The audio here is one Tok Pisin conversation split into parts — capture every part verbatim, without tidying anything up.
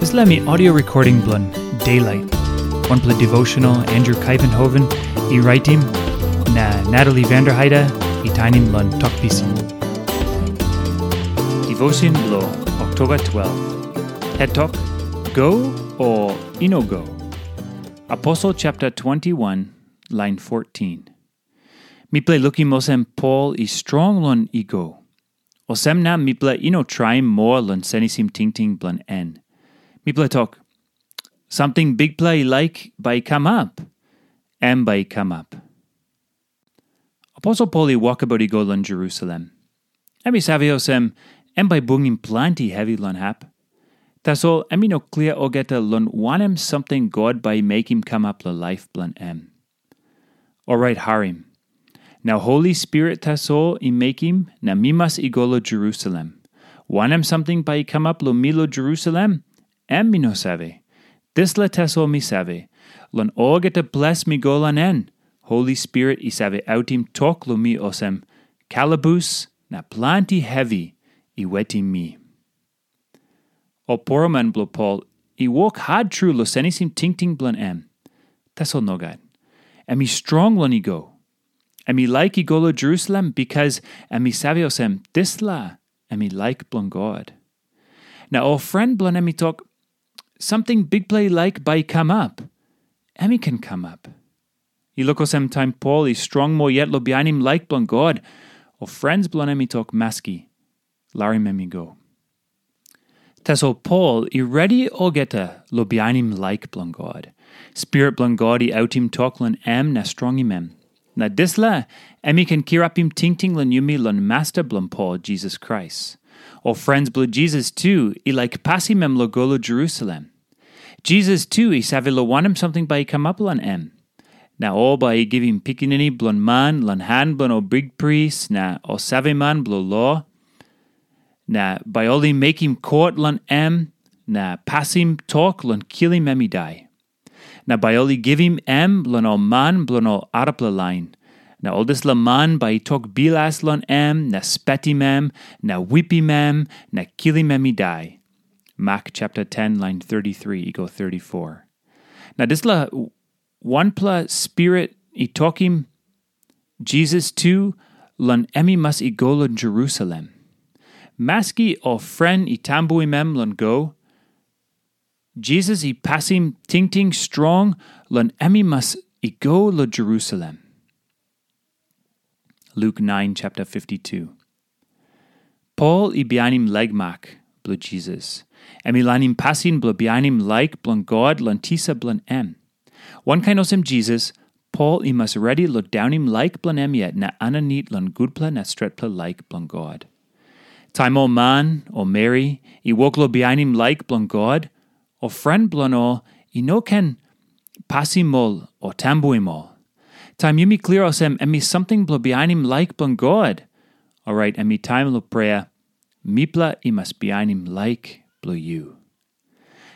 Dispela em i audio recording bilong Daylight, wanpela devotional Andrew Kuyvenhoven i raitim, na Natalie Vanderheide i tainim long Tok Pisin. Devotion bilong Oktoba twelve. Het tok, go o i no go. Aposel chapter twenty-one, line fourteen. Mipela i lukim olsem Pol i strong long i go. Olsem na mipela i no traim moa long senisim tingting bilong en. Mipela tok, samting Bikpela i laik bai i kamap, em bai i kamap. Aposel Pol i wokabaut i go long Jerusalem. Em i save olsem, em bai bungim planti hevi long hap. Tasol em i no klia olgeta long wanem samting God bai i mekim kamap long laip bilong em. Orait harim. Na Holi Spirit tasol i mekim na mi mas i go long Jerusalem. Wanem samting bai i kamap long mi long Jerusalem, em mi no save. Dispela tasol mi save, long olgeta ples mi go long en, Holi Spirit i save autim tok long mi olsem, kalabus na planti hevi i wetim mi. Ol poroman bilong Pol i wok hat tru long senisim tingting bilong em. Tasol nogat. Em i strong long i go. Em i laik i go long Jerusalem bikas em i save olsem dispela em i laik bilong God. Na ol pren bilong em i tok, samting Bikpela i laik bai i kamap, em i ken kamap. I luk olsem taim Pol i strong moa yet long bihainim laik bilong God, ol pren bilong em i tok maski, larim em i go. Tasol Pol i redi olgeta long bihainim laik bilong God. Spirit bilong God i autim tok long em na strongim em. Na dispela em i ken kirapim tingting long yumi long Masta bilong Pol, Jisas Krais. Ol pren bilong Jisas tu i laik pasim em long go long Jerusalem. Jisas tu i save long wanem samting bai i kamap long em. Na ol bai i givim Pikinini Bilong Man long han bilong ol bikpris na ol saveman bilong lo. Na bai ol i mekim kot long em na pasim tok long kilim em i dai. Na bai ol i givim em long ol man bilong ol arapela lain. Na ol dispela man bai i tok bilas long em na spetim em na wipim em na kilim em i dai. Mak chapter ten, line thirty-three i go thirty-four. Na dispela wanpela spirit i tokim Jisas tu long em i mas i go long Jerusalem. Maski ol pren i tambuim em long go, Jisas i pasim tingting strong long em i mas i go long Jerusalem. Luk nine chapter fifty-two. Pol i bihainim laik mak bilong Jisas. Em i lainim pasin bilong bihainim laik bilong God long tisa bilong em. Wankain olsem Jisas, Pol i mas redi long daunim laik bilong em yet na aninit long gutpela na stretpela laik bilong God. Taim ol man o meri i wok long bihainim laik bilong God, ol pren bilong ol i no ken pasim ol o tambuim ol. Taim yumi klia olsem em i samting bilong bihainim laik bilong God, orait em i taim long prea, mipela i mas bihainim laik bilong yu.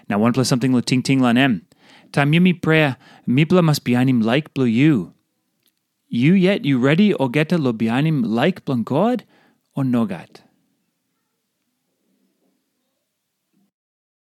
Na wanpela samting long tingting long em, taim yumi prea, mipela mas bihainim laik bilong yu. Yu yet yu redi olgeta long bihainim laik bilong God, o nogat?